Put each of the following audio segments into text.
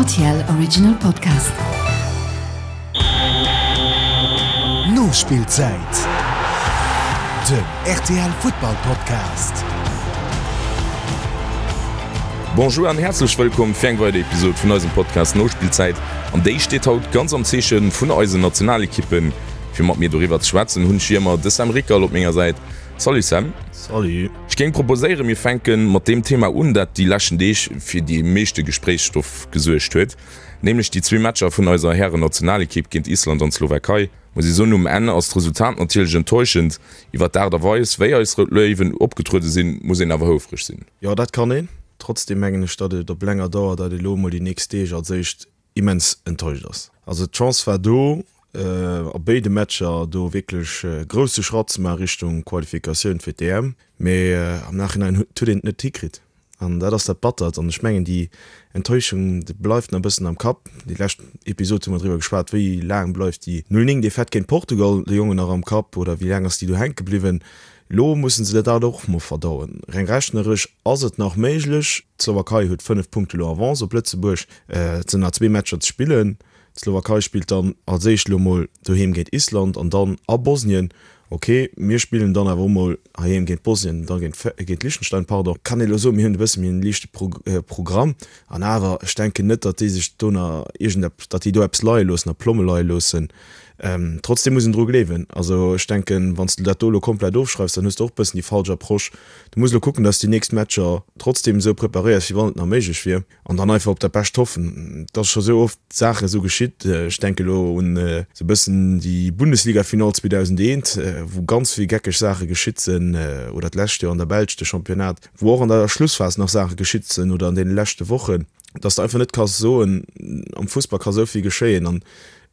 RTL Original Podcast. Nospillzäit, den rtl Futtball Podcast. Bonjour an häerzlech wëllkomm fir eng weider Episode vun eisem Podcast Nospillzäit. An déi steet haut ganz am Zeeche vun eisen Nationalekippen. Fir mat mir doriwwer ze schwätzen hunn ech wéi ëmmer de Sam Rickerl op menger Säit. Salut Sam. Salut. Ech géing proposéieren, mir fänke mat deem Thema un, dat déi leschten Deeg fir dee meeschte Gespréichsstoff gesuergt huet, nämlech déi zwee Matcher vun eiser Hären-Nationalekipp géint Island an d'Slowakei. Muss ee soen, um Enn ass d'Resultat natierlech enttäuschend. Iwwer d'Aart a Weis, wéi eis Rout Léiwen opgetruede sinn, muss een awer houfreg sinn. Jo, dat kann een. Trotzdem mengen ech, datt et op länger Dauer, datt ee lo emol déi nächst Deeg als éischt immens enttäuscht ass. Also d'Chance war do, a béide Matcher do wierklech e grousse Schratt ze maache Richtung Qualifikatioun fir d'EM, mee am Nachhinein huet een et net hikritt an dat ass dat Battert. An ech mengen déi Enttäuschung déi bleift nach e bëssen am Kapp. Déi lescht Episod hu mer driwwer geschwat, wéi laang bleift déi 0, 9 Defaite géint Portugal de Jongen nach am Kapp oder wéi laang ass déi do hänke bliwwen. Elo mussen se dat och mol verdauen. Reng rechneresch ass et nach méiglech. D'Slowakei huet 5 Punkte elo Avance op Lëtzebuerg. Et sinn nach zwee Matcher ze spillen. D'Slowakei spillt dann als éischt elo mol doheem géint Island an dann a Bosnien. Ok, mir spillen dann awer och mol heiheem géint Bosnien, da géint Liechtenstein, pardon. Kann ee elo soen, mir hunn e bësse méi en liichte Programm. An awer, ech denken net, datt déi sech do nach iergendeppes, datt déi do eppes leie loossen a Plomme leie loossen. Trotzdem muss een dru gleewen. Also ech denken, wann s de dat do elo komplett ofschreifs, dann hues de och e bëssen déi falsch Approche. Du muss elo kucken, datt s de déi nächst Matcher trotzdem esou preparéiers, wéi wann et nach méiglech wier, an dann einfach op dat Bescht hoffen. Et ass scho sou oft Saache sou geschitt. Ech denke elo un esou e bëssen déi Bundesliga-Finall 2001, wou ganz vill geckeg Saache geschitt sinn, oder d'lescht Joer an der Belsch de Championnat, wou och an der Schlussphas nach Saache geschitt sinn oder an deene leschte Wochen, dass de einfach net kanns soen, am Fussball ka sou vill geschéien an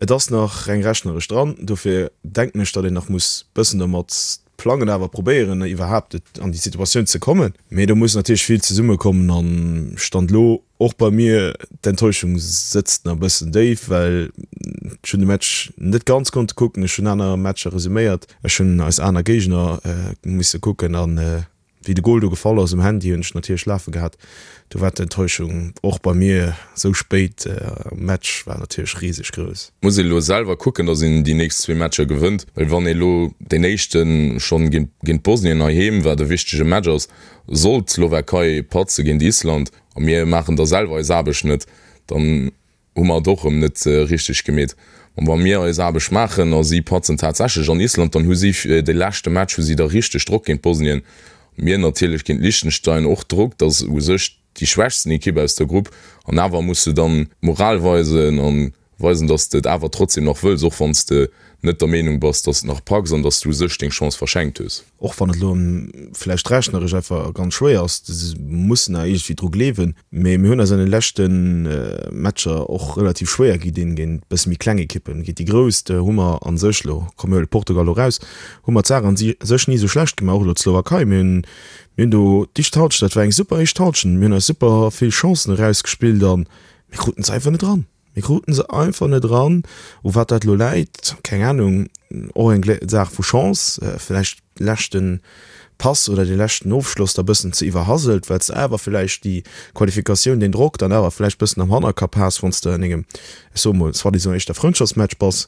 et ass nach reng rechneresch dran. Dofir denken ech, datt een nach muss bëssen domat plangen, awer probéieren iwwerhaapt an déi Situatioun ze kommen. Mee do muss natierlech vill zesummekommen an Stand elo och bei mir, d'Enttäuschung sëtzt nach e bëssen déif, well ech hunn de Match net ganz konnte kucken, ech hunn aner Matcher resuméiert, ech hunn eis aner Géigner musse kucken an Wéi de Gol do gefall ass um Handy, hunn ech natierlech lafe gehat. Do war d'Enttäuschung och bei mir esou spéit am Match war natierlech riseg grouss. Muss een elo selwer kucken, dass een déi nächst zwee Matcher gewënnt, well wann ee elo deen éischte schonn géint Bosnien heiheem, wat e wichtege Match ass, sollt d'Slowakei patze géint Island a mir maachen da selwer eis Aarbecht net, dann hu mer et och erëm net richteg gemeet. An wa mir eis Aarbecht maachen a si patzen tatsächlech an Island, dann hu si de leschte Match hu si da richteg Drock géint Bosnien. Mir natierlech géint Liechtenstein och Drock, dat ass u sech déi schwächsten Ekipp aus der Grupp. An awer muss de dann d'Moral weisen a weisen, datt s de et awer trotzdem nach wëlls, och wann s de net der Meenung bass, datt s de nach packs an datt s du u sech deng Chance verschenkt hues. Och wann et elo vläicht rechneresch einfach ganz schwéier ass, se mussen awer iergendwéi dru gleewen. Mee mir hunn eis an de leschte Matcher och relativ schwéier gi dinn géint e bësse méi kleng Ekippen. Géint déi grouss hu mer a sech elo, komm mir huele Portugal elo raus, hu mer d'Saach a sech ni esou schlecht gemaach. Och elo d'Slowakei, mir hunn mir hunn do d'éischt Halschent, dat war eng super éischt Halschent, mir hunn eis super vill Chancen erausgespillt a mir kruten se einfach net eran. Mir kruten se einfach net eran. U wat dat elo läit, keng Ahnung. Och eng Saach vu Chance, vläicht leschten Pass oder dee leschten Ofschloss da bëssen ze iwwerhaselt, well s de awer vläicht déi Qualifikatioun, deen Drock dann awer vläicht bëssen am Hannerkapp has, wann s de an engem, ech soe mol, soi-disant éischter Frëndschaftsmatch bass.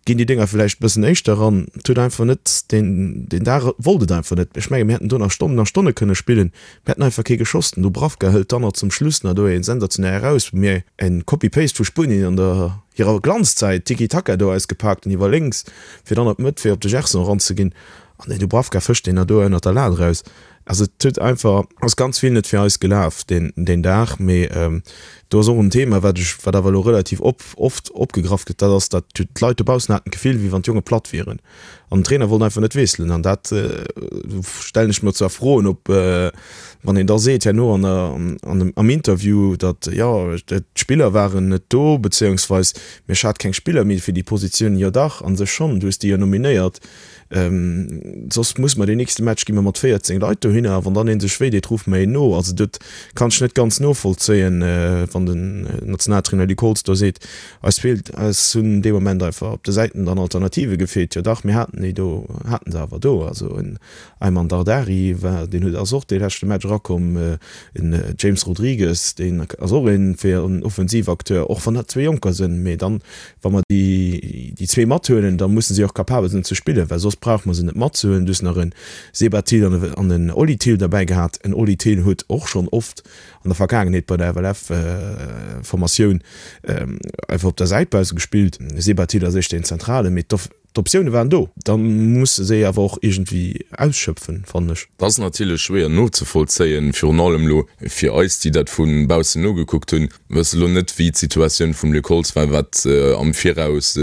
Ginn déi Dénger vläicht bëssen éischter eran. Et huet einfach net, deen deen Dag wollt et einfach net. Ech menge mir hätten do nach Stonnen a Stonne kënne spillen, mir hätten einfach kee geschoss. Den Dubravka hëlt dann nach zum Schluss nach do ee sensationell eraus, wou mir en Copy-Paste vu Spuenien an der hirer Glanzzäit, Tiki-Taka do ausgepaakt hunn iwwer lénks, fir dann op d'Mëtt fir op de Gerson eranzeginn. An den Dubravka fëscht deen nach do ënnert der Lat eraus. Also et huet einfach, ass ganz vill net fir eis gelaf deen deen Dag. Mee do ass och en Thema, wat ech, wat awer elo relativ op oft opgegraff gëtt, dat ass, datt d'Leit dobaussen haten d'Gefill, wéi wann d'Jonge platt wieren an den Trainer wollt einfach net wiesselen. An dat stellen ech mer zwar Froen, ob wann een da seet herno an der an dem am Interview, datt jo d'Spiller waren net do, bezéiungsweis mee ech hat keng Spiller méi fir déi Positioun. Jo dach, a sech schonn, du hues déi jo nominéiert. Soss muss mer deen nächste Match gi mer mat 14 Leit dohinner. dohinner a wann dann een sech wéi deet, ruffe mer een no. Also dat kann ech net ganz novollzéien, wann den Nationaltrainer Luc Holtz do seet, eis feelt, eis hunn dee Moment einfach op de Säiten dann Alternative gefeelt. Jo dach, mir haten déi do, haten se awer do. Also en Aiman Dardari war, deen huet, ass och dee leschte Match erakomm, en James Rodrigues, deen ass och een fir en Offensivacteur, och wann dat zwee Jonker sinn. Mee dann, wa mer déi déi zwee mathuelen, da musse si och capabel sinn ze spillen, well soss brauche mer se net matzehuelen. Du hues nach e Seba Thill an an en Oli Thill derbäi gehat. En Oli Thill huet och schonn oft an der Vergaangenheet bei der FLF-Formatioun einfach op der Säit bausse gespillt. Seba Thill ass éischter een Zentralen, mee d'Optioune waren do. Da muss de se awer och iergendwéi ausschöpfen, fannen ech. Dat ass natierlech schwéier nozevollzéien, virun allem elo fir eis, déi dat vu baussen nogekuckt hunn. Mir wësse lo net, wéi d'Situatioun vum Luc Holtz war, wat am Viraus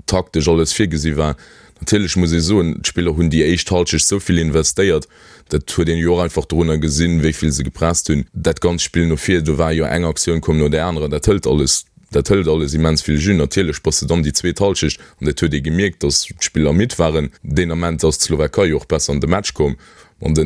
taktesch alles virgesi war. Natierlech muss ee soen, d'Spiller hunn déi éischt Halschecht esou vill investéiert, dat huet een jo och einfach dorunner gesinn, wéi vill se gepresst hunn. Dat ganzt Spill no vir, do war jo eng Aktioun koum no där anerer, dat hëlt alles, dat hëlt alles immens vill Jus. Natierlech bass de dann déi zweet Halschecht, an dat huet ee gemierkt, datt d'Spiller midd waren. Deen Ament ass d'Slowakei jo och besser an de Match komm an de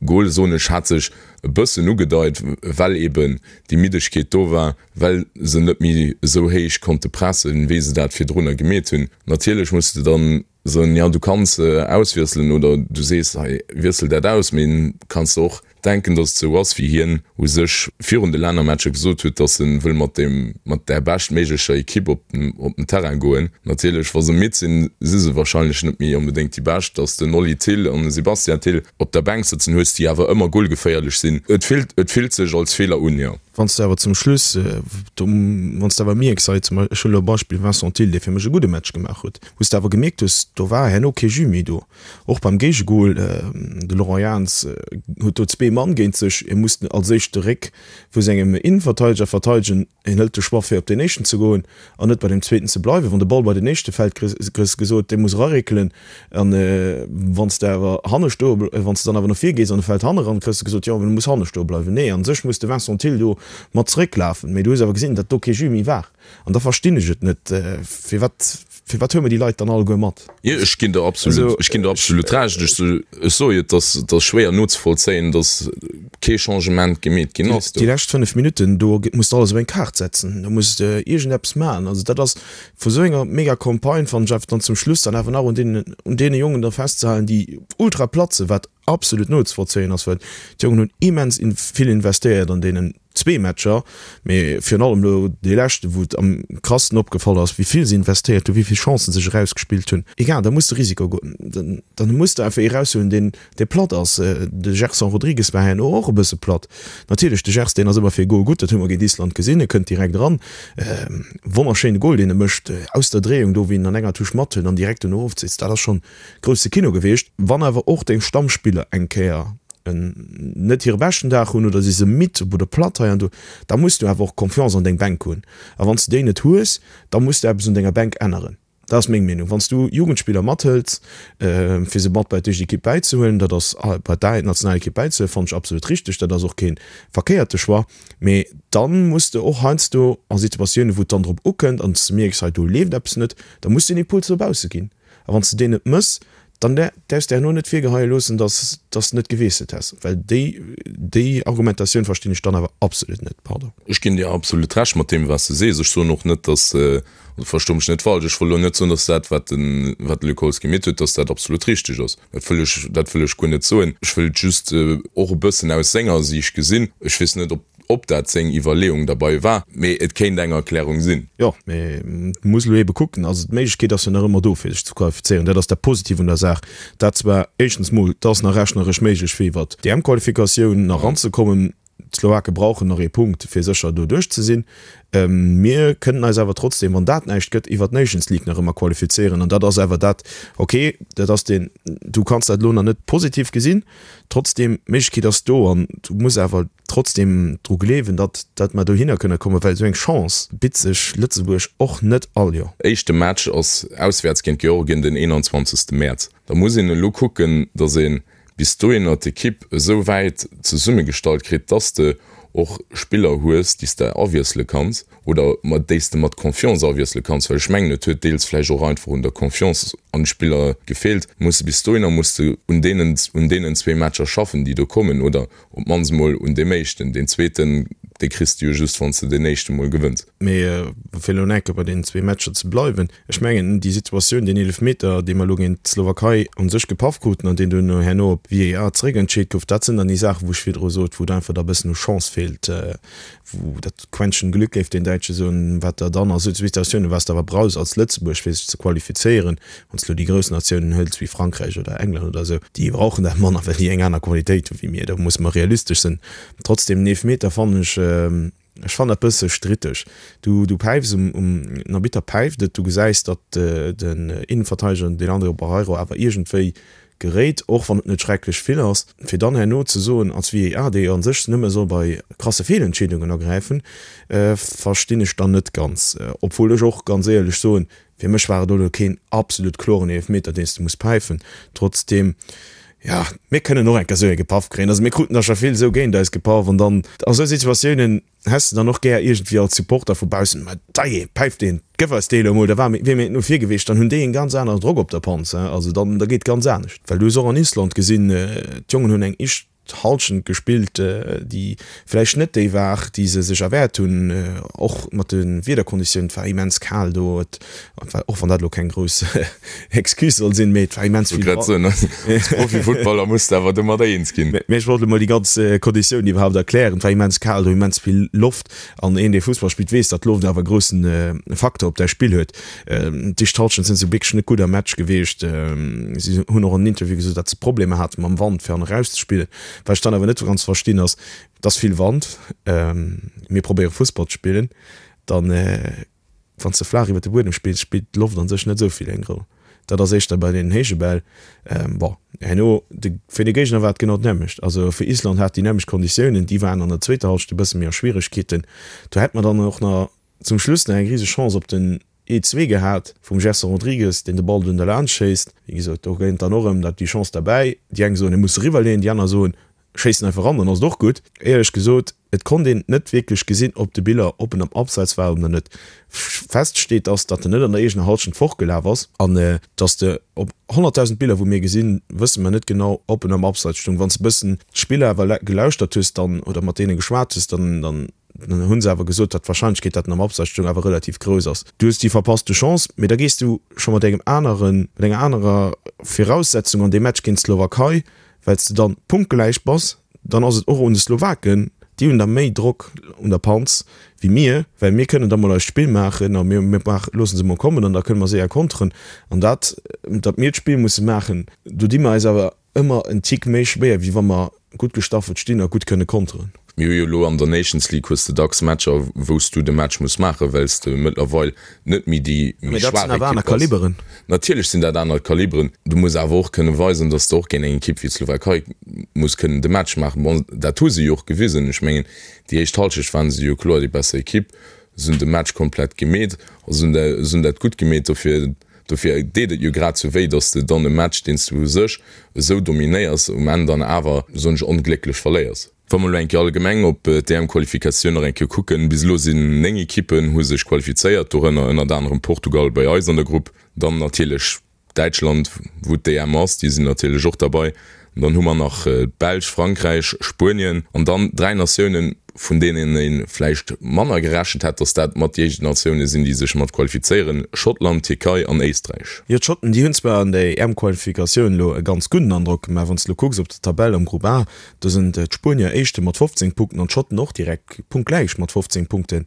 Gol, soen ech, hat sech e bëssen ugedeit, well eben déi Middegkeet do war, well se net méi esou héich konnte pressen, wéi se dat virdrunner gemeet hunn. Natierlech muss de dann soen, jo du kanns auswiesselen oder du sees, hei wiessel dat aus, mee kanns de och denken, datt et esou ass, wéi hien u sech virun de Lännermatcher gesot huet, datt e wëll mat deem, mat där beschtméiglecher Ekipp op op den Terrain goen. Natierlech, wa se midd sinn, si se wahrscheinlech net méi onbedéngt déi Bescht. Datt den Oli Thill an de Sebastian Thill op der Bänk sëtzen hues, déi awer ëmmer golgeféierlech sinn. Et fillt, et fillt sech als Feeler un, jo. Wann s de awer zum Schluss, do, wann s de awer mierks, hei zum, ech huelen elo e Beispill, Vincent Thill, dee fir mech e gudde Match gemaach huet, wou s de awer gemierkt hues, do war herno kee Jus méi do. Och beim Géigegol, de Laurent Jans huet do zwee Mann géint sech, hie muss als éischt de Réck vu sengem Innenverteideger verteidegen, hien hëlt de Choix fir op deen éischten ze goen an net bei deem zweeten ze bleiwen. Wann de Ball bei den éischte fält, kriss gesot, dee muss eraréckelen an wann s de awer hanne stoe, wann s de dann awer no vir gees an e fält hanne ran, kriss de gesot, jo, du muss hanne stoe bleiwen. Nee, a sech muss de Vincent Thill do mat zerécklafen, mee du hues awer gesinn, datt do kee Jus méi war. An da verstinn ech et net, firwat, firwat huele mer déi Leit dann alleguer mat? Jo, ech ginn der absolut, ech ginn der absolut Recht. Ech, ech soe jo, et ass, et ass schwéier nozevollzéien, datt kee Changement gemeet ginn ass do. Déi lescht 5 Minutten, do muss de alles op eng Kaart setzen, do muss de iergendeppes maachen. Also dat ass vu sou enger mega Campagne, fannen ech, einfach dann zum Schluss dann awer nach un deenen, un deene Jongen da festzehalen, déi ultra platt sinn, wat absolut nozevollzéien ass, well d'Jongen hunn immens vill investéiert an deenen zwee Matcher, mee virun allem elo dee leschten, wou et am krassten opgefall ass, wéi vill se investéiert hunn, wéi vill Chancen sech erausgespillt hunn. Egal, da muss de Risiko goen, dann muss de einfach ee raushuelen, deen, dee platt ass. De Gerson Rodrigues war herno och e bësse platt. Natierlech, de Gers, deen ass ëmmer fir e Gol gutt, dat hu mer géint Island gesinn, e kënnt direkt eran, wonnerschéine Gol, deen e mécht, aus der Dréiung do, wéi en an enger Touche mathëlt an direkt dono ofzitt, dat ass schonn Grousse Kino gewiescht. Wann awer och deng Stammspiller eng Kéier net hire beschten Dag hunn oder si se midd oder platt hei an do, da muss du awer och Confiance an deng Bänk hunn. A wann s du déi net hues, da muss du eppes un denger Bänk änneren. Dat ass meng Meenung. Wann s du Jugendspiller mathëls, fir se mat bei d'éischt Ekipp bäizehuelen, dat ass bei d'A-Nationalekipp bäizehuelen, fannen ech absolut richteg. Dat ass och kee verkéierte Choix. Mee dann muss de och heiansdo a Situatiounen, wou et dann drop ukënnt an s du mierks, hei do leeft eppes net, da muss du en Impuls no bausse ginn. A wann s de deen net mëss, dann däerfs de herno net virgeheie loossen, dass s de net gewiesselt häss. Well déi, déi Argumentatioun verstinn ech dann awer absolut net. Pardon. Ech ginn dir absolut Recht mat deem, wat s de sees. Ech soen och net, dass, also versto mech net falsch, ech wëll elo net soen, dass dat, wat de, wat de Luc Holtz gemeet huet, dass dat absolut richteg ass. Dat wëll ech, dat wëll ech guer net soen. Ech wëll et just och e bëssen aus senger Siicht gesinn. Ech weess net, ob Ob dat seng Iwwerleeung derbei war, mee et kéint eng Erklärung sinn. Jo, mee et muss elo eebe kucken. Also d'Méiglechkeet ass jo nach ëmmer do fir sech ze qualifizéieren. Dat ass dat Positiv un der Saach. Dat zwar éischtens mol, et ass nach rechneresch méiglech fir iwwert d'EM-Qualifikatioun nach eranzekommen. D'Slowake brauchen nach ee Punkt fir sécher do duerch ze sinn. Mir kënnen eis awer trotzdem, wann dat näischt gëtt, iwwert d'Nations League nach ëmmer qualifizéieren. An dat ass awer dat, okay, dat ass deen, du kanns dat elo nach net positiv gesinn, trotzdem, d'Méiglechkeet ass do an du muss awer trotzdem dru gleewen, datt datt mer dohinner kënne kommen, well esou eng Chance bitt sech Lëtzebuerg och net all Joer. Éischte Match ass auswäerts géint Georgien den 21 Mäerz. Da muss een elo kucken, datt ee bis dohinner d'Ekipp esou wäit zesummegestallt kritt, datt de. och Spiller hues, déi s de awiessele kanns oder mat déi s de mat Confiance awiessele kanns, well ech mengen, et huet deels vläicht och einfach un der Confiance an de Spiller gefeelt. Muss de bis dohinner muss de un deenen un deenen zwee Matcher schaffen, déi do kommen, oder op d'mannst emol un deem éischten. Deen zweeten, dee kriss de jo just, wann s de deen éischte mol gewënns. Mee fir elo enke bei deenen zwee Matcher ze bleiwen, ech mengen, déi Situatioun, deen Eelefmeter, dee mer elo géint d'Slowakei u sech gepaff kruten an deen duerno herno op VAR zeréckentscheet gouf, dat sinn dann déi Saachen, wou ech virdru sot, wou et einfach da e bëssen u Chance feelt, wou dat Quäntchen Glück, géif deen Däitsche soen, wat der dann a sou Situatiounen, wat s de awer brauchs als Lëtzebuerg, fir sech ze qualifizéieren, wann s de elo déi grouss Natiounen hëls wéi Frankräich oder England oder esou, déi brauchen dat manner, well déi eng aner Qualitéit hu wéi mir. Do musse mer realistesch sinn. Trotzdem, den Eelefmeter fannen ech, ech fannen dat bësse stritteg. Du, du päifs um, um, den Arbitter päift et, du gesäis, datt den Innenverteideger, den Leandro Barreiro, awer iergendwéi geréit, och wann et net schrecklech vill ass, fir dann herno ze soen als VAR, dee jo an sech nëmme soll bei krasse Feelentscheedungen agräifen, verstinn ech dann net ganz. Obwuel ech och ganz éierlech soen, fir mech war et elo keen absolut kloren Eelefmeter, deen s de muss päifen. Trotzdeem, jo, mir kënnen och eng Kéier esou ee gepaff kréien. Also mir kruten der scho vill esou géint eis gepaff an dann a sou Situatiounen, Häss de dann och gär iergendwéi als Supporter vu baussen, ma dajee, päift deen, gëff eis dee lo emol, da war mir, wier mir no vir gewiescht, dann hunn déi en ganz aneren Drock op der Panz, hein, also dann, da geet ganz anescht. Well du hues och an Island gesinn, d'Jongen hunn eng éischt Halschent gespillt, déi vläicht net déi war, déi se sech erwäert hunn, och mat de Wiederkonditiounen, et war immens kal do, et war, och wann dat elo keng grouss Excuse soll sinn, mee et war immens vill Wand. Als Profifuttballer muss de awer domadder eens ginn. Mee ech wollt elo mol déi ganz Konditiounen iwwerhaapt erklären. Et war immens kal do, immens vill Loft. An een, dee Fussball spillt, weess, datt d'Loft awer e groussen Facteur op däi Spill huet. D'éischt Hallschent sinn se wierklech net gutt am Match gewiescht. Si hunn och an den Interview gesot, datt se Problemer hate mam Wand, fir an eraus ze spillen. Wat ech dann awer net ganz verstinn ass, et ass vill Wand, mir probéiere Fussball ze spillen, dann Wann s de flaach iwwer de Buedem spills, spillt d'Loft an sech net esou vill eng Roll. Dat ass éischter bei deenen héije Bäll. Bon, herno, de, fir de Géigner war et genau d'nämmlecht. Also fir Island hat déi nämmlecht Konditiounen, déi waren an der zweeter Hallschent e bësse méi a Schwieregkeeten. Do hätt mer dann och nach zum Schluss nach eng rise Chance op den ee zwee gehat vum Gerson Rodrigues, deen de Ball dunn derlaanscht schéisst. Wéi gesot, do kënnt dann och erëm dat déi Chance derbäi. Déi eng soen, e muss eriwwerleeën, déi aner soen, Schéissen einfach ran, dann ass et och gutt. Éierlech gesot, et konnt een net wierklech gesinn ob de Biller ob en am Abseits war oder net. Fest steet ass, datt en net an der eegener Halschent fortgelaf ass an datt de op 100.000 Biller wou mir gesinn, wësse mer net genau ob en am Abseits stung. Wann s de bëssen d'Spiller awer gelauschtert hues dann oder mat deene geschwat hues, dann dann hunn se awer gesot, datt d'Warscheinlechkeet, datt en am Abseits stung, awer relativ grouss ass. Du hues déi verpasste Chance, mee da gees du scho mat engem aneren, mat enger anerer Viraussetzung an dee Match géint d'Slowakei, well s de dann punktgläich bass, dann ass et och un de Slowaken, déi hunn da méi Drock un der Panz wéi mir, well mir kënnen da mol eist Spill maachen a mir loosse se mol kommen an da kënne mer séier konteren. An dat, datt mir d'Spill musse maachen, do di mer eis awer ëmmer en Tick méi schwéier, wéi wa mer gutt gestaffelt stinn a gutt kënne konteren. Mir hu jo elo an der Nations League hues de dacks Matcher, wou s du de Match muss maachen, well s de mëttlerweil net méi déi méi schwaach Ekipp bass. Natierlech sinn dat aner Kaliberen. Du muss awer och kënne weisen, datt s de och géint eng Ekipp wéi d'Slowakei muss kënnen de Match maachen. Bon, dat hu se jo och gewisen. Ech mengen, déi éischt Hallschecht waren se jo kloer déi besser Ekipp. Se hunn de Match komplett gemeet a se hunn dat gutt gemeet. Dofir Dofir deet et jo grad sou wéi, datt s de dann e Match, deen s du u sech esou dominéiers, um Enn dann awer, soen ech, onglécklech verléiers. Wa mer elo eng Kéier allgemeng op d'EM-Qualifikatioun nach eng Kéier kucken, bis elo sinn 9 Ekippen hu sech qualifizéiert, dorënner ënnert anerem Portugal bei eis an der Grupp, dann natierlech Däitschland, wou d'EM ass, déi sinn natierlech och derbei. Dann hu mer nach d'Belsch, Frankräich, Spuenien an dann 3 Natiounen, vun deenen ee vläicht manner gerechent hätt, datt dat mat déi éischt Natioune sinn, déi sech mat qualifizéieren, Schottland, Tierkei an Éisträich. Jo, d'Schotten, déi hunn zwar an der EM-Qualifikatioun elo e ganz gudden Androck gemaach. Wann s de elo kucks op der Tabell am Grupp A, do sinn d'Spuenier Éischte mat 15 Punkten an d'Schotten och direkt punktgläich mat 15 Punkten.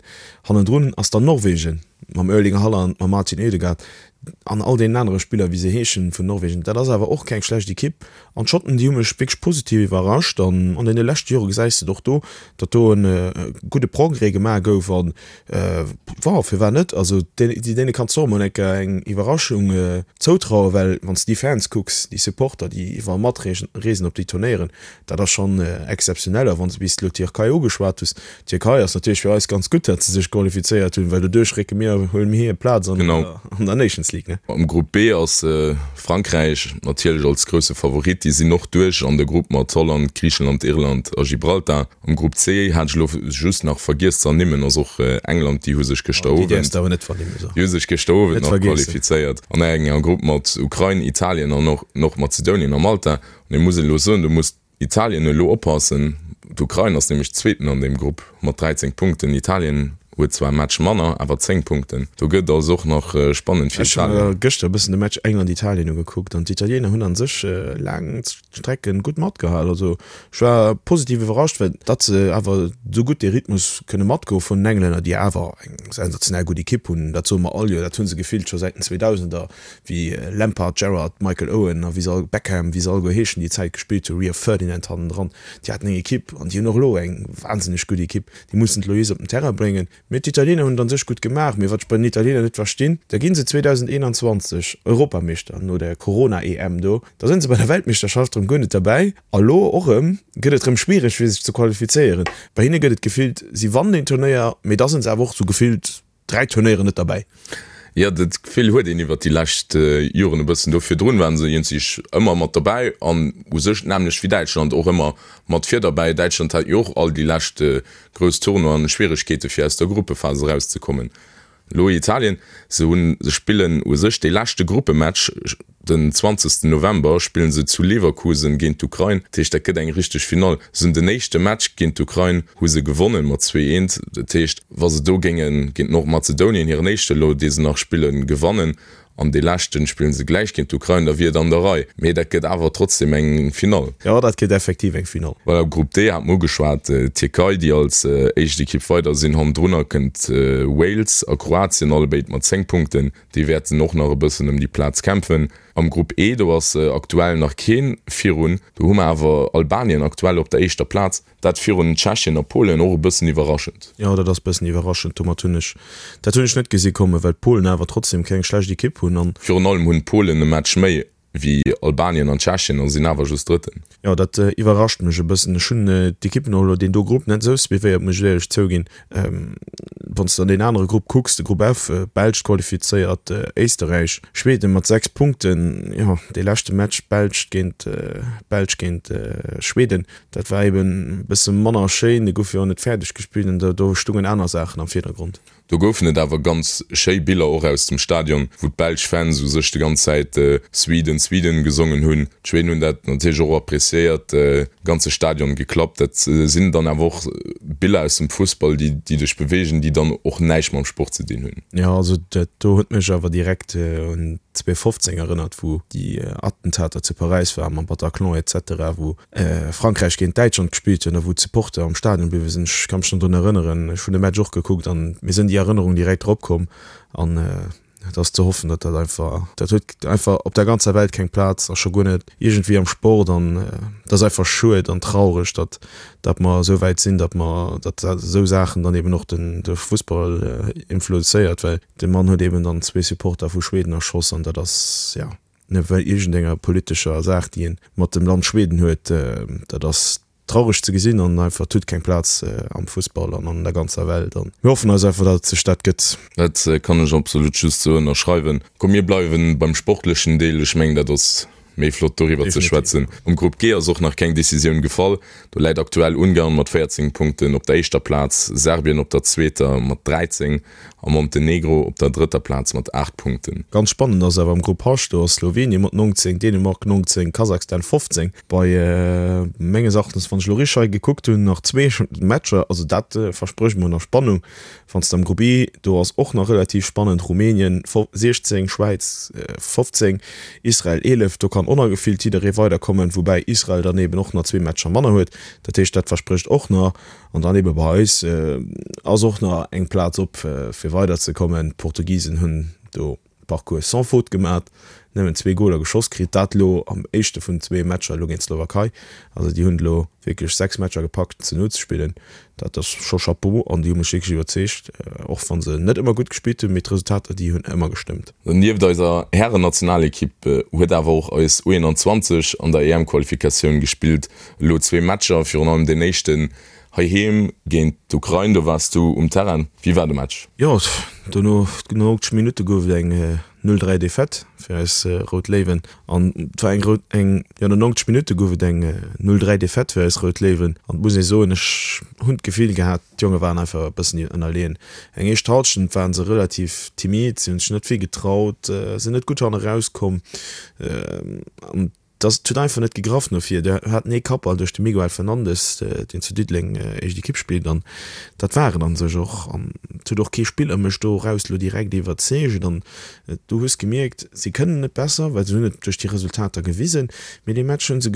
Hannendrun ass dann Norwegen mam Erling Haaland, mam Martin Ødegaard an all deenen anere Spiller, wéi se heeschen, vun Norwegen. Dat ass awer och keng schlecht Ekipp. An d'Schotten, déi hu mech wierklech positiv iwwerrascht. An an deene leschte Jore gesäis de et och do, datt do e gudde Progrès gemaach gouf. An bon, firwat net? Also deene kanns de och emol eng Kéier eng Iwwerraschung zoutrauen, well wann s de déi Fans kucks, déi Supporter, déi iwwerall matreesen op déi Turnéieren, dat ass schonn exzeptionell. A wann s de bis elo d'Tierkei ugeschwat hues, D'Tierkei ass natierlech fir eis ganz gutt, datt se sech qualifizéiert hunn, well doduerch récke mir, huele mir hir Plaz an der Nations League. Champions League, ne? Am Grupp B ass Frankräich natierlech als grousse Favorit. Déi sinn och duerch an de Grupp mat Holland, Griichenland, Irland a Gibraltar. Am Grupp C hat ech elo just nach vergiess ze ernimmen, ass och England, déi hu sech gëschter Owend, déi hu sech gëschter Owend nach qualifizéiert an enger Grupp mat Ukrain, Italien an och Nordmazedonien a Malta. An ee muss elo soen, do muss Italien elo oppassen, d'Ukrain ass nämlech Zweeten an deem Grupp mat 13 Punkten. Italien huet zwar e Match manner, awer 10 Punkten. Do gëtt et also och nach spannend fir Ech hu Italien. mer gëschter e bëssen de Match England-Italien ugekuckt an d'Italiener hunn a sech laang Strecken gutt matgehal. Also ech war positiv iwwerrascht, well datt se awer esou gutt dee Rhythmus kënne matgoe vun den Englänner, déi awer eng sensationell gutt Ekipp hunn, dat soe mer all Joer, dat hu se gefillt scho säit den 2000er. wéi Lampard, Gerrard, Michael Owen a wéi se all, Beckham, wéi se alleguer heeschen, déi Zäit gespillt hunn, Rio Ferdinand hannendran, déi haten eng Ekipp an déi hunn och elo eng wahnsinneg gutt Ekipp, déi mussen d'Lois op den Terrain bréngen. Mee d'Italiener hunn et an sech gutt gemaach. Mee wat ech bei den Italiener net verstinn, da gi se 2021 Europameeschter no der Corona-EM do, da sinn se bei der Weltmeeschterschaft erëm guer net derbäi a lo och erëm gëtt et erëm schwiereg fir sech ze qualifizéieren. Bei hinne gëtt et gefillt, si wannen een Turnéier, mee da sinn se awer och sou gefillt 3 Turnéieren net derbäi. Jo, dat Gefill huet een iwwert déi lescht Joren e bëssen. Do virdrun waren se iergendwéi ëmmer mat derbäi an u sech d'nämmlecht wéi Däitschland och ëmmer mat vir derbäi. Däitschland hat jo och all déi lescht grouss Tournoien Schwieregkeete fir aus der Gruppephas erauszekommen. Elo Italien, se hunn, se spillen u sech dee leschte Gruppematch Den 20 November spillen se zu Leverkusen géint d'Ukrain, dat heescht dat gëtt eng richteg Finall. Se hunn den éischte Match géint d'Ukrain hu se gewonnen mat 2, 1, dat heescht wa se do géinge géint Nordmazedonien, hiren éischte elo dee se nach spillen, gewannen an dee leschten spillen se gläich géint d'Ukrain, da wier et an der Rei. Mee dat gëtt awer trotzdem eng Finall. Jo, dat gëtt effektiv eng Finall. Voilà, Grupp D hat mer ugeschwat, d'Tierkei déi als éischt Ekipp weider sinn, hannendrunner kënnt Wales a Kroatien, allebéid mat 10 Punkten. Déi wäerten och nach e bëssen ëm déi Plaz kämpfen. Am Grupp E, do ass aktuell nach kee virun. Do hu mer awer Albanien aktuell op der éischter Plaz. Dat virun Tschechien a Polen, och e bëssen iwwerraschend. Jo, dat ass bëssen iwwerraschend. Domat hunn ech, dat hunn ech net gesi kommen, well d'Polen awer trotzdem keng schlecht Ekipp hunn an. Virun allem hunn d'Polen e Match méi wéi Albanien an Tschechien a sinn awer just Drëtten. Jo, dat iwwerrascht mech e bëssen. Ech hunn d'Ekippen och elo deen do Grupp net esou suivéiert, muss ech éierlech zouginn. Wann s de an deen anere Grupp kucks, de Grupp F, Belsch qualifizéiert, Éisterräich, Schweden mat 6 Punkten. Jo, dee leschte Match Belsch géint Belsch géint Schweden, dat war eben e bësse manner schéin. Dee gouf jo och net fäerdeg gespillt an do stungen aner Saachen am Virdergrond. Do goufen et awer ganz schéi Biller och aus dem Stadion, wou d'belsch Fans u sech de ganz Zäit Sweden, Sweden gesongen hunn. D'Schweden hunn dat natierlech och appreciéiert, de ganze Stadion geklappt. Dat sinn dann awer och Biller aus dem Fussball, déi dech beweegen, déi dann och näischt mam Sport ze dinn hunn. Jo, also dat do huet mech awer direkt un 2015 erënnert, wou déi Attentater zu Paräis waren mam Bataclan et cetera, wou Frankräich géint Däitschland gespillt hunn a wou d'Supporter am Stadion bliwwe sinn. Ech ka mech nach drun erënneren, ech hunn de Match och gekuckt an mir sinn déi Erënnerung direkt erop komm an et ass ze hoffen, datt dat einfach, dat huet einfach op der ganzer Welt keng Plaz a scho guer net iergendwéi am Sport an et ass einfach schued an traureg, datt datt mer esou wäit sinn, datt mer, datt esou Saachen dann eben och den de Fussball influenzéiert, well de Mann huet eben dann zwee Supporter vu Schweden erschoss an dat ass, jo. Net well iergendenger politescher Saach, déi een mat dem Land Schweden huet. Dat ass traureg ze gesinn an einfach, et huet keng Plaz am Fussball an an der ganzer Welt. An mir hoffen eis einfach, datt et sech dat gëtt. Dat kann ech absolut just esou ënnerschreiwen. Komm mir bleiwen beim sportlechen Deel, ech mengen dat ass méi flott doriwwer ze schwätzen. Am Grupp G ass och nach keng Decisioun gefall. Do läit aktuell Ungarn mat 14 Punkten op der éischter Plaz, Serbien op der zweeter mat 13 A Montenegro op der drëtter Plaz mat 8 Punkten. Ganz spannend ass awer am Grupp H, do ass Slowenien mat 19, Dänemark 19, Kasachstan 15. Bei menges Erachtens, wann ech elo richteg hei gekuckt hunn, nach zwee Matcher, also dat versprécht mer nach Spannung. Wann s de am Grupp E, do ass och nach relativ spannend, Rumänien 16, Schwäiz 15, Israel 11, do kann och nach gefillt jidderee weiderkommen, woubäi Israel dann eben och nach zwee Matcher manner huet. Dat heescht, dat versprécht och nach. An dann ebe bei eis ass och nach eng Plaz op fir weider ze kommen. D'Portugisen hunn do Parcours sans faute gemat, nëmmen zwee Goler geschoss kritt, dat elo am éischte vun zwee Matcher elo géint d'Slowakei. Also déi hunn elo wierklech 6 Matcher gepackt ze null ze spillen. Dat ass scho Chapeau an déi hu mech wierklech iwwerzeegt, och wa se net ëmmer gutt gespillt hunn, mee d'Resultater déi hunn ëmmer gestëmmt. Nieft eiser Härennationalekipp huet awer och eis U21 an der EM-Qualifikatioun gespillt. Elo zwee Matcher, virun allem deen éischten heiheem géint d'Ukrain, do waars du um Terrain. Wéi war de Match? Jo, dono, no 90 Minutte gouf et eng. 0, 3 Defaite fir eis Rout Léiwen an et war eng rout, eng, jo no 90 Minutte gouf et eng 0, 3 Defaite fir eis Rout Léiwen an et muss ee soen, ech hunn d'Gefill gehat, d'Jonge waren einfach e bëssen ënnerleeën. Eng éischt Hallschent waren se relativ timid, si hunn sech net vill getraut, sinn net gutt hanne rauskomm an Et huet einfach net gegraff no vir. Dir haten ee Kappball duerch de Miguel Fernandes, deen zu Diddeleng éischt Ekipp spillt, an dat war et an sech och. An et huet och kee Spiller mech do eraus elo direkt iwwerzeegt. An du hues gemierkt, si kënnen et besser, well se hunn et duerch déi Resultater gewisen, mee dee Match hu se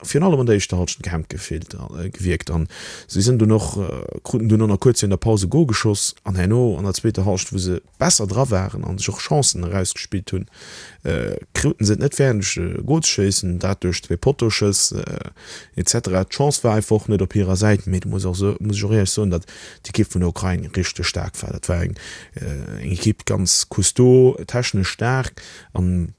virun allem an der éischter Hallschent gehemmt gefillt, gewierkt. An si sinn dunn och, kruten dunn och nach kuerz virun der Paus e Gol geschoss an herno an der zweeter Hallschent, wou se besser dra waren an sech och Chancen erausgespillt hunn, kruten se et net fäerdeg e Gol ze schéissen, dat duerch zwee Pottoschëss etc. D'Chance war einfach och net op hirer Säit, mee do muss och muss ech och éierlech soen, datt d'Ekipp vun der Ukrain richteg staark war. Dat war eng eng Ekipp ganz costaud, technesch staark an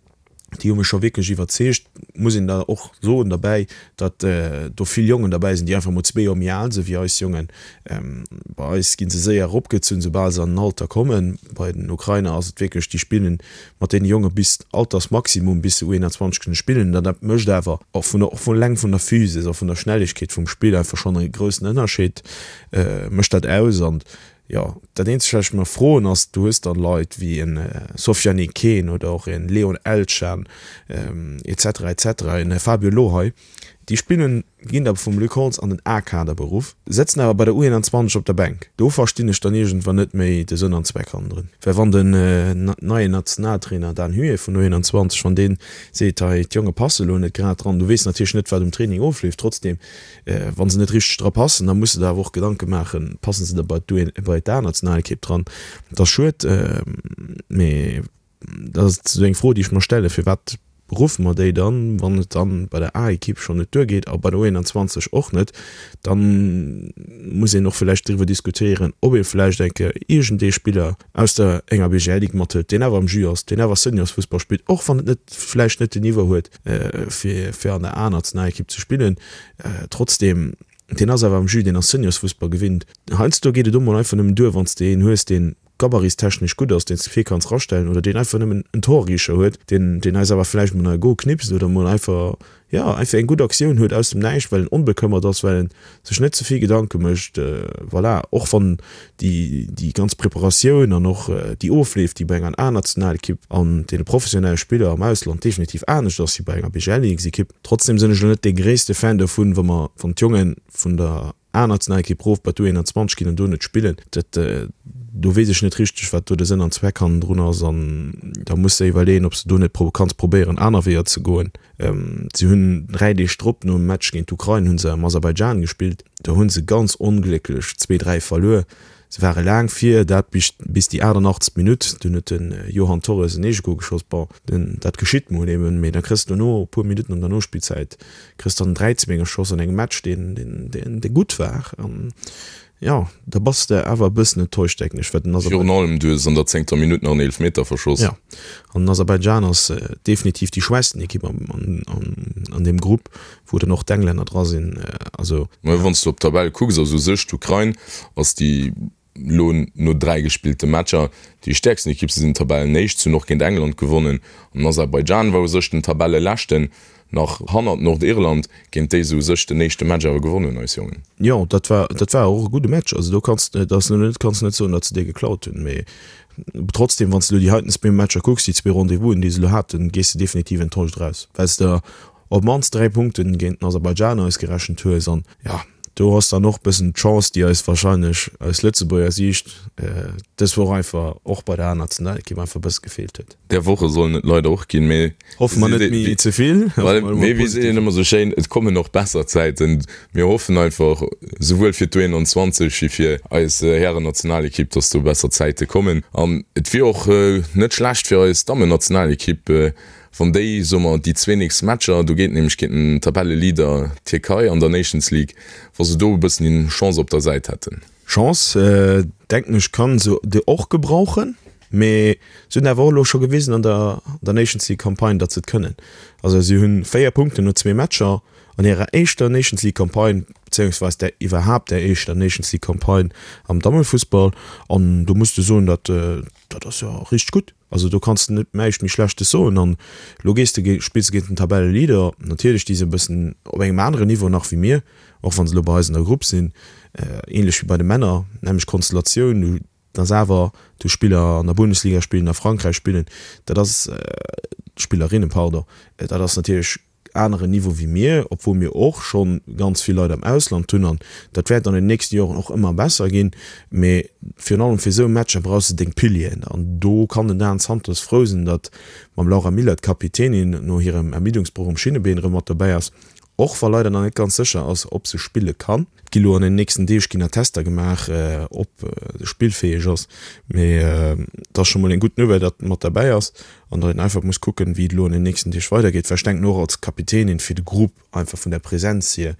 déi hu mech scho wierklech iwwerzeegt. Muss een da och soen derbäi, datt do vill Jongen derbäi sinn, déi einfach mol zwee Joer méi al sinn wéi eis Jongen. Bei eis gi se séier eropgezunn, soubal se an den Alter kommen. Bei den Ukrainer ass et wierklech, déi spillen mat deene Jonge bis Altersmaximum, bis se U21 kënne spillen. An dat mécht awer och vun der, och vun eleng vun der Physis a vun der Schnellegkeet vum Spill einfach schonn e groussen Ënnerscheed mécht dat aus. An Jo, dat eenzegt wat ech mer froen ass, du hues dann Leit wéi en Sofiane Kane oder och en Leon Elchan etc etc, en Fabio Lohei, déi spillen, ginn da vum Luc Holtz an den A-Kader beruff, sëtzen awer bei der U21 op der Bänk. Do verstinn ech dann iergendwann net méi de Sënn an Zweck hannendrun. Well wann den neien Nationaltrainer Dan Huet vun U21, wann dee seet, hei d'Jonge passe lo net grad dran, du weess natierlech net wat um Training ofleeft, trotzdem, Wa se net richteg dra passen, da muss de der awer och Gedanke maachen, passen se da bei bei d'A-Nationalekipp dran? Dat ass schued, mee dat ass esou eng Fro, déi ech mer stellen, Firwat beruffe mer déi dann, wann et dann bei der A-Ekipp schonn net duergeet a bei der U21 och net? Da muss een och vläicht driwwer diskutéieren, ob ee vläicht eng Kéier iergendee Spiller aus der enger BGL-Ligue mathëlt, deen awer am Jus ass, deen awer Seniorsfussball spillt, och wann et net vläicht net den Niveau huet, fir fir an der A-Nationalekipp ze spillen. Trotzdeem, deen ass awer am Jus, deen ass Seniorsfussball gewinnt. Heiansdo geet et och mol einfach nëmmen duer, wann s de een hues, deen gabaritstechnesch gutt ass, deen s de vir kanns rastellen oder deen einfach nëmmen en Torricher huet, deen deen eis awer vläicht mol nach e Gol knipst oder mol einfach jo, einfach eng gutt Aktioun huet aus dem Näischt, well en onbekëmmert ass, well en sech net ze vill Gedanke mécht. Voilà, och wann déi, déi ganz Preparatioun an och déi Ofleef, déi bei enger A-Nationalekipp an deene professionelle Spiller am Ausland definitiv anescht ass wéi bei enger BGL-Ligue-Ekipp. Trotzdem sinn ech elo net dee gréisste Fan dovun, wa mer, wann d'Jonge vun der A-Nationalekipp rof bei d'U21 ginn an do net spillen. Dat, do weess ech net richteg, wat do de Sënn an Zweck hannendrun ass an da muss de iwwerleeën, ob s de do net kanns probéieren, aner Weeër ze goen. Si hunn 3 Deeg drop, nom Match géint d'Ukrain, hu se am Aserbaidschan gespillt. Do hu se ganz onglécklech zwee, 3 verluer. Se ware laang vir, dat bis bis déi 88. Minutt. Dunn huet de Johan Torres en Eegegol geschoss. Bon, dat geschitt mol eben, mee da kriss de dono, e puer Minutten an der Nospillzäit, kriss dann 3, 2 geschoss an engem Match, deen, deen, deen gutt war. An Jo, da bass de awer e bëssen enttäuscht, denken ech, well den Aserbaidschan. Virun allem, du hues an der zéngter Minutt nach en Eelefmeter verschoss. Jo, an den Aserbaidschan ass definitiv déi schwächsten Ekipp an deem Grupp, wou dann och d'Englänner dra sinn. Also. Mä wann s du op d'Tabell kucks, ass u sech d'Ukrain ass déi elo no 3 gespillte Matcher déi stäerksten Ekipp. Se sinn Tabellenéischt, se hunn och géint England gewonnen an den Aserbaidschan war u sech den Tabelleleschten. Nach hannert Nordirland, géint déi se u sech den éischte Match awer gewonnen hunn, eis Jongen. Jo, dat war, dat war och e gudde Match. Also do kanns de, dat ass elo net, kanns de net soen, datt se dee geklaut hunn. Mee trotzdem, wann s de elo déi heiten zwee Matcher kucks, déi zwee Rendez-vousen, déi se elo haten, gees de definitiv enttäuscht eraus, well s de op d'mannst 3 Punkten géint den Aserbaidschan ausgerechent hues. An jo, do ass dann och e bëssen d'Chance, déi eis wahrscheinlech aus Lëtzebuerger Siicht dës Woch einfach och bei der A-Nationalekipp einfach e bësse gefeelt huet. Där Woche sollen et leider och ginn, mee Hoffe mer net méi ze vill. Mee wéi seet een ëmmer sou schéin, et kommen och besser Zäiten. Mir hoffen einfach, souwuel fir d'U21 wéi fir eis Härennationalekipp, dass do besser Zäite kommen. An et wier och net schlecht fir eis Dammennationalekipp, wann déi, soe mer, déi zwee nächst Matcher, do geet nämlech géint den Tabelleleader Tierkei an der Nations League, wa se do e bëssen Chance op der Säit hätten. Chance, denken ech, kann se och gebrauchen. Mee se hunn awer och elo scho gewisen an der der Nations League Campagne, datt se et kënnen. Also si hunn 4 Punkten no zwee Matcher an hirer éischter Nations League Campagne. Bezéiungsweis där iwwerhaapt där éischter Nations League Campagne am Dammefussball. An do muss de soen, dat dat ass jo richteg gutt. Also do kanns de net näischt méi Schlechtes soen. An elo gees de, spills de géint den Tabelleleader. Natierlech, déi si e bëssen op engem aneren Niveau nach wéi mir, och wa se elo bei eis an der Grupp sinn. Ähnlech wéi bei de Männer, nämmlecht Konstellatioun. Du dass awer do Spiller an der Bundesliga spillen, a Frankräich spillen, dat ass, Spillerinnen, pardon, dat ass natierlech aneren Niveau wéi mir, obwuel mir och scho ganz vill Leit am Ausland hunn an dat wäert an den nächste Joren och ëmmer besser ginn. Mee virun allem fir esou Matcher brauchs de deng Pilieren an do kann den Dan Santos frou sinn, datt mam Laura Miller d'Kapitänin no hirem Ermiddungsbroch um Schinnebeen erëm mat dobäi ass, och wa leider nach net ganz sécher ass, ob se spille kann. Et gi lo an den nächsten Deeg ginn nach Tester gemaach, ob se spillfäeg ass. Mee et ass scho mol eng gutt Nouvelle, datt mat derbäi ass an datt een einfach muss kucken, wéi et elo an den nächsten Deeg weidergeet. Well ech denken och als Kapitänin fir de Grupp, einfach vun der Präsenz hier,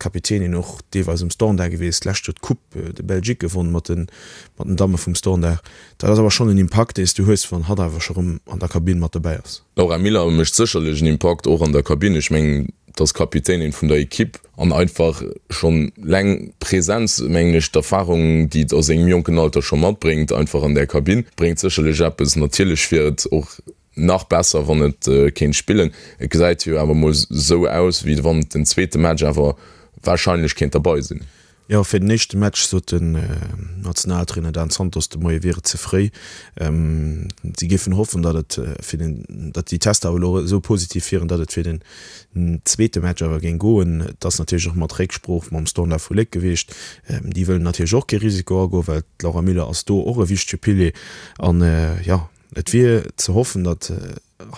Kapitänin och deelweis um Standard gewiescht, d'lescht Joer d'Coupe de Belgique gewonn mat den mat den Damme vum Standard. Dat ass awer schonn en Impakt, dee s du hues, wann hatt awer scho rëm an der Kabinn mat dobäi ass. D'Laura Miller mécht sécherlech en Impakt och an der Kabinn. Ech mengen, et ass Kapitänin vun der Ekipp an einfach schonn leng Präsenz, mengen ech, d'Erfahrung, déi et a sengem jonken Alter scho matbréngt, einfach an där Kabinn, bréngt sécherlech eppes. Natierlech wier et och nach besser, wann et kéint spillen. Et gesäit jo awer mol esou aus, wéi wann et den zweete Match awer warscheinlech kéint derbei sinn. Jo, fir den éischte Match sot den Nationaltrainer Dan Santos de Moie wier et ze fréi. Si géifen hoffen, datt et fir den, datt déi Tester awer elo esou positiv wieren, datt et fir den zweete Match awer géing goen. Et ass natierlech och mat Récksprooch mam Standard vu Léck gewiescht. Déi wëllen natierlech och kee Risiko agoen, well d'Laura Miller ass do och e wichtege Pilier. An jo, et wier ze hoffen, datt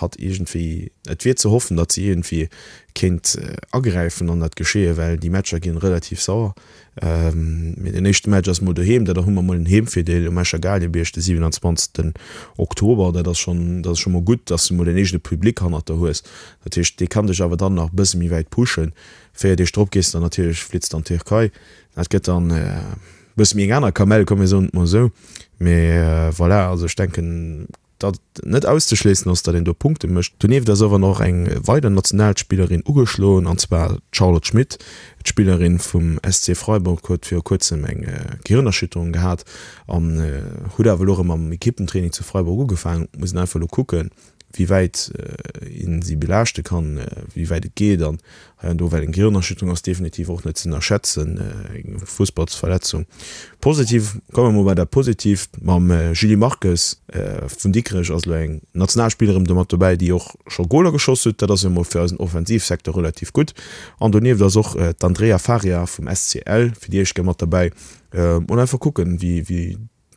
hatt iergendwéi, et wier ze hoffen, datt si iergendwéi kéint agräifen an dat Geschehe, well déi Matcher ginn relativ sauer. Mee den éischte Match ass mol doheem, dat hu mer mol en Heemvirdeel um Escher Gaalgebierg de 27 Oktober. Dat ass schonn, dat ass scho mol gutt, datt s de mol en eegene Public hannert der hues. Dat heescht, dee kann dech awer dann nach e bësse méi wäit pushen. 4 Deeg drop gees de dann natierlech, flitts de an d'Tierkei. Dat gëtt dann e bësse méi eng aner Kamell, komm mir soen et mol esou. Mee voilà, also ech denken, Datt et net auszeschléissen ass, datt een do Punkte mécht. Donieft ass awer nach eng weider Nationalspillerin ugeschloen, an zwar d'Charlotte Schmitt. D'Spillerin vum SC Freiburg huet viru kuerzem eng Gehirnerschütterung gehat an huet awer elo erëm am Ekippentraining zu Freiburg ugefaangen. Et muss een einfach elo kucken, wéi wäit een si belaaschte kann, wéi wäit et geet an hei an do, well eng Gehirnerschütterung ass definitiv och net ze ënnerschätzen, eng Fussballsverletzung. Positiv, komme mer mol bei dat Positiivt, mam Julie Marques vun Dikrech ass elo eng Nationalspillerin do mat dobäi, déi och scho Goler geschoss huet. Dat ass jo mol fir eisen Offensivsecteur relativ gutt. An donieft ass och d'Andrea Faria vum SCL fir déi éischt Kéier mat dobäi. Mol einfach kucken, wéi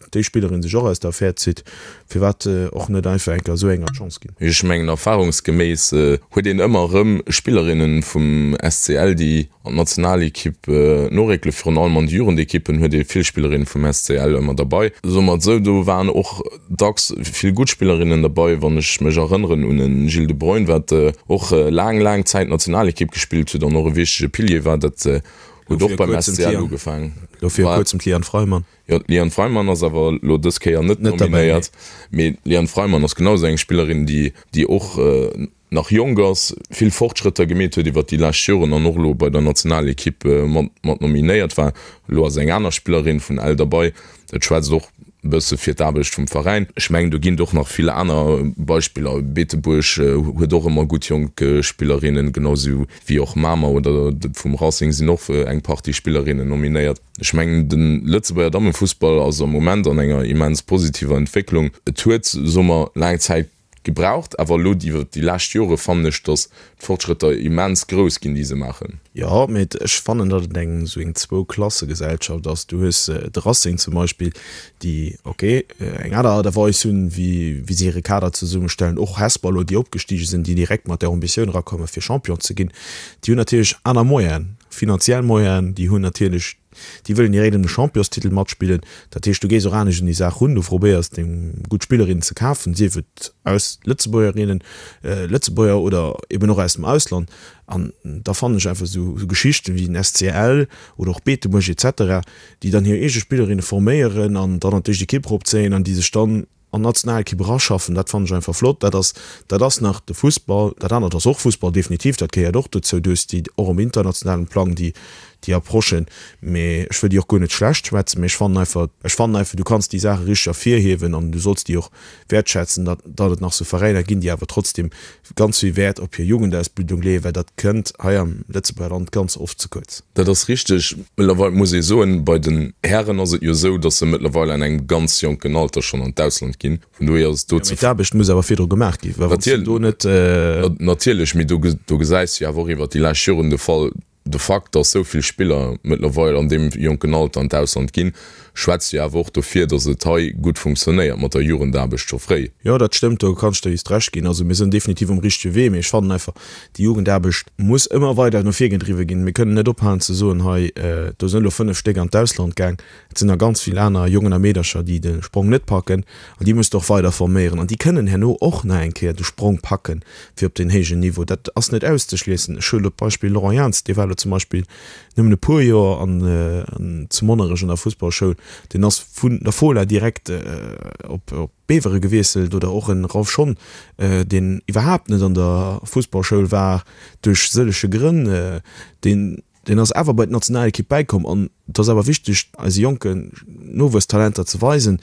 déi Spillerin sech och aus der Affär zitt, firwat och net einfach eng Kéier esou enger d'Chance ginn? Ech mengen erfahrungsgeméiss huet een ëmmer erëm Spillerinnen vum SCL déi an d'Nationalekipp noréckelen. Virun allem an de Jugendekippen huet ee vill Spillerinnen vum SCL ëmmer derbei. Soe mer et esou, do waren och dacks vill gutt Spillerinnen derbei. Wann ech mech erënneren un e Gilles de Bruyne, wat och laang laang Zäit Nationalekipp gespillt huet an och e wichtege Pilier war, dat huet och beim SCL ugefaangen. Lo viru kuerzem d'Liane Freimann. Jo, d'Liane Freimann ass awer elo dës Kéier net nominéiert. Mee d'Liane Freimann ass genau esou eng Spillerin, déi, déi och nach jonk ass, vill Fortschrëtter gemeet huet iwwert déi lescht Joren an och elo bei der Nationalekipp mat, mat nominéiert war. Elo ass eng aner Spillerin vun Ell derbei. Dat schwätzt och e bësse fir d'Aarbecht vum Veräin. Ech mengen, do ginn et och nach vill aner Beispiller. Beetebuerg huet och ëmmer gutt jonk Spillerinnen, genau esou wéi och Mamer oder vum Racing sinn och eng Partie Spillerinnen nominéiert. Ech mengen, de Lëtzebuerger Dammefussball ass am Moment an enger immens positiver Entwécklung. Et huet, soe mer, laang Zäit gebraucht, awer elo iwwer déi lescht Jore fannen ech, datt d'Fortschrëtter immens grouss ginn, déi se maachen. Jo, mee ech fannen, datt et eng esou eng Zwou-Klasse-Gesellschaft ass. Du hues de Racing zum Beispill, déi, ok, eng aner Aart a Weis hunn, wéi wéi se hire Kader zesummestellen. Och Hesper elo, déi opgestige sinn, déi direkt mat där Ambitioun erakommen, fir Champion ze ginn, déi hunn natierlech aner Moyenen. Finanziell Moyenen, déi hunn natierlech, déi wëllen direkt ëm de Championstitel matspillen. Dat heescht, du gees och anescht un déi Saach run, du probéiers deng gutt Spillerinnen ze kafen, sief et aus Lëtzebuergerinnen, Lëtzebuerger oder eben och aus dem Ausland. An da fannen ech einfach esou Geschichten wéi den SCL oder och Beetebuerg et cetera, déi dann hir eege Spillerinne forméieren an dann an d'éischt Ekipp eropzéien an déi sech dann an d'Nationalekipp eraschaffen, dat fannen ech einfach flott. Dat ass, dat ass nach de Fussball. Dat anert ass och Fussball, definitiv, dat gehéiert och dozou. Du hues déi och um internationalen Plang, déi, Déi Approche. Mee ech wëll déi och guer net schlecht schwätzen, mee ech fannen einfach, ech fannen einfach, du kanns déi Saache richteg ervirhiewen an du solls déi och wäertschätzen, datt, datt et nach sou Veräiner ginn, déi awer trotzdem ganz vill Wäert op hir Jugendausbildung leeën, well dat kënnt hei am Lëtzebuerger Land ganz oft ze kuerz. Dat ass richteg. Mëttlerweil muss ee soen, bei den Hären ass et jo esou, datt se mëttlerweil an engem ganz jonken Alter schonn an d'Ausland ginn. Vun dohier ass et do ze. Mee d'Aarbecht muss awer virdru gemaach ginn, well wann s de do net. Natierlech, mee do, do gesäis de jo awer och iwwert déi lescht Joren de Fall, De Fakt, dass esou vill Spiller mëttlerweil an deem jonken Alter an d'Ausland ginn, schwätzt jo awer och dofir, dass et hei gutt funktionéiert mat der Jugendaarbecht scho fréi. Jo, dat stëmmt, do kann ech der just Recht ginn. Also mir sinn definitiv um richtege Wee, mee ech fannen einfach, déi Jugendaarbecht muss ëmmer weider no vir gedriwwe ginn. Mir kënnen net ophalen ze soen, hei do sinn elo 5 Stéck an d'Ausland gaang. Et sinn der ganz vill aner Jongen a Meedercher, déi de Sprong net packen an déi muss de och weider forméieren an déi kënnen herno och nach eng Kéier de Sprong packen fir op deen héijen Niveau. Dat ass net auszeschliessen. Ech huelen elo d'Beispill Laurent Jans, dee war elo zum Beispill nëmmen e puer Joer an zu Monnerech an der Fussballschoul, deen ass vun der Fola direkt op Bevere gewiesselt oder och en Ralph Schon, deen iwwerhaapt net an der Fussballschoul war duerch sëllege Grënn, deen Deen ass awer bei d'Nationalekipp bäikomm an et ass awer wichteg, eise jonken Nowuesstalenter ze weisen,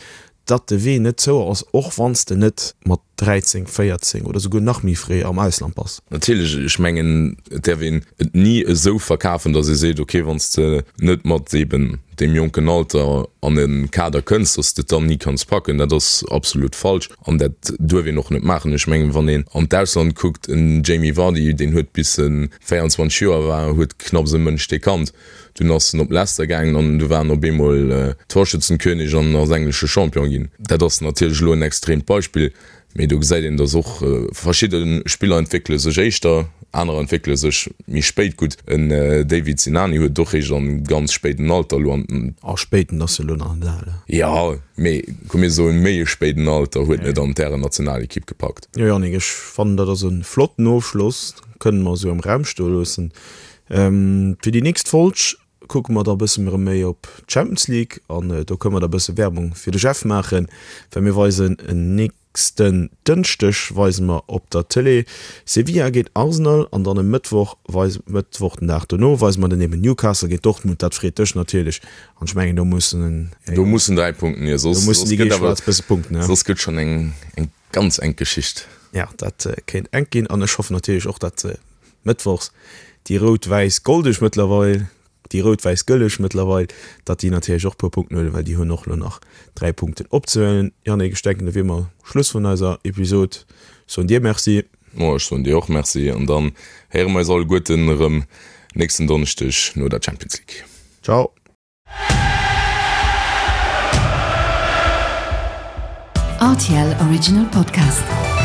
datt de Wee net zou ass, och wann s de net mat 13, 14 oder souguer nach méi fréi am Ausland bass. Natierlech, ech mengen, et däerf een et ni esou verkafen, datt ee seet, ok, wann s de net mat eben deem jonken Alter an e Kader kënns, datt s de et dann ni kanns packen. Dat ass absolut falsch an dat duerf een och net maachen. Ech mengen, wann een an d'Ausland kuckt, en Jamie Vardy, deen huet bis en 24 Joer war, huet knapps e Mënsch dee kannt. Dunn ass en op Leicester gaangen an du war en op eemol Torschützenkönig an ass englesche Champion ginn. Dat ass natierlech elo en extreemt Beispill, mee do gesäit een, datt och verschidde Spiller entwéckele sech éischter, anerer entwéckele sech méi spéit. Gutt, en David Sinani huet et och réischt an ganz spéiden Alter elo an. A spéiten ass jo elo nach net al. Jo, mee komm mir soen méi e spéiden Alter huet en et an d'Härennationalekipp gepackt. Jo Yannick, ech fannen dat ass e flotten Ofschloss. Kënnen mer esou am Raum stoe loossen. Fir déi nächst Folg kucke mer da e bësse erëm méi op d'Champions League an do kënne mer da e bësse Werbung fir de Jeff maachen, well mir weisen en nächsten Dënschdeg weise mer op der Tëlee Sevilla géint Arsenal an dann e Mëttwoch weise Mëttwoch den Dag dono weise mer dann eben Newcastle géint Dortmund. Dat freet dech natierlech an ech mengen do mussen Do mussen 3 Punkten hier, soss gëtt awer bësse Punkten, soss gëtt schonn eng eng Ganz enk Geschicht. Ja, dat kéint enk ginn an ech hoffen natierlech och, datt mëttwochs déi rout-wäiss-goldeg mëttlerweil, déi rout-wäiss-gëlleg mëttlerweil, datt déi natierlech och e puer Punkten huelen, well déi hunn och elo nach 3 Punkten opzehuelen. Yannick, ech denken, da wier mer Schluss vun eiser Episod. Soen dir Merci. Mo, ech soen dir och Merci an dann héiere mer eis alleguerten erëm nächsten Donneschdeg no der Champions League. Ciao. RTL Original Podcast.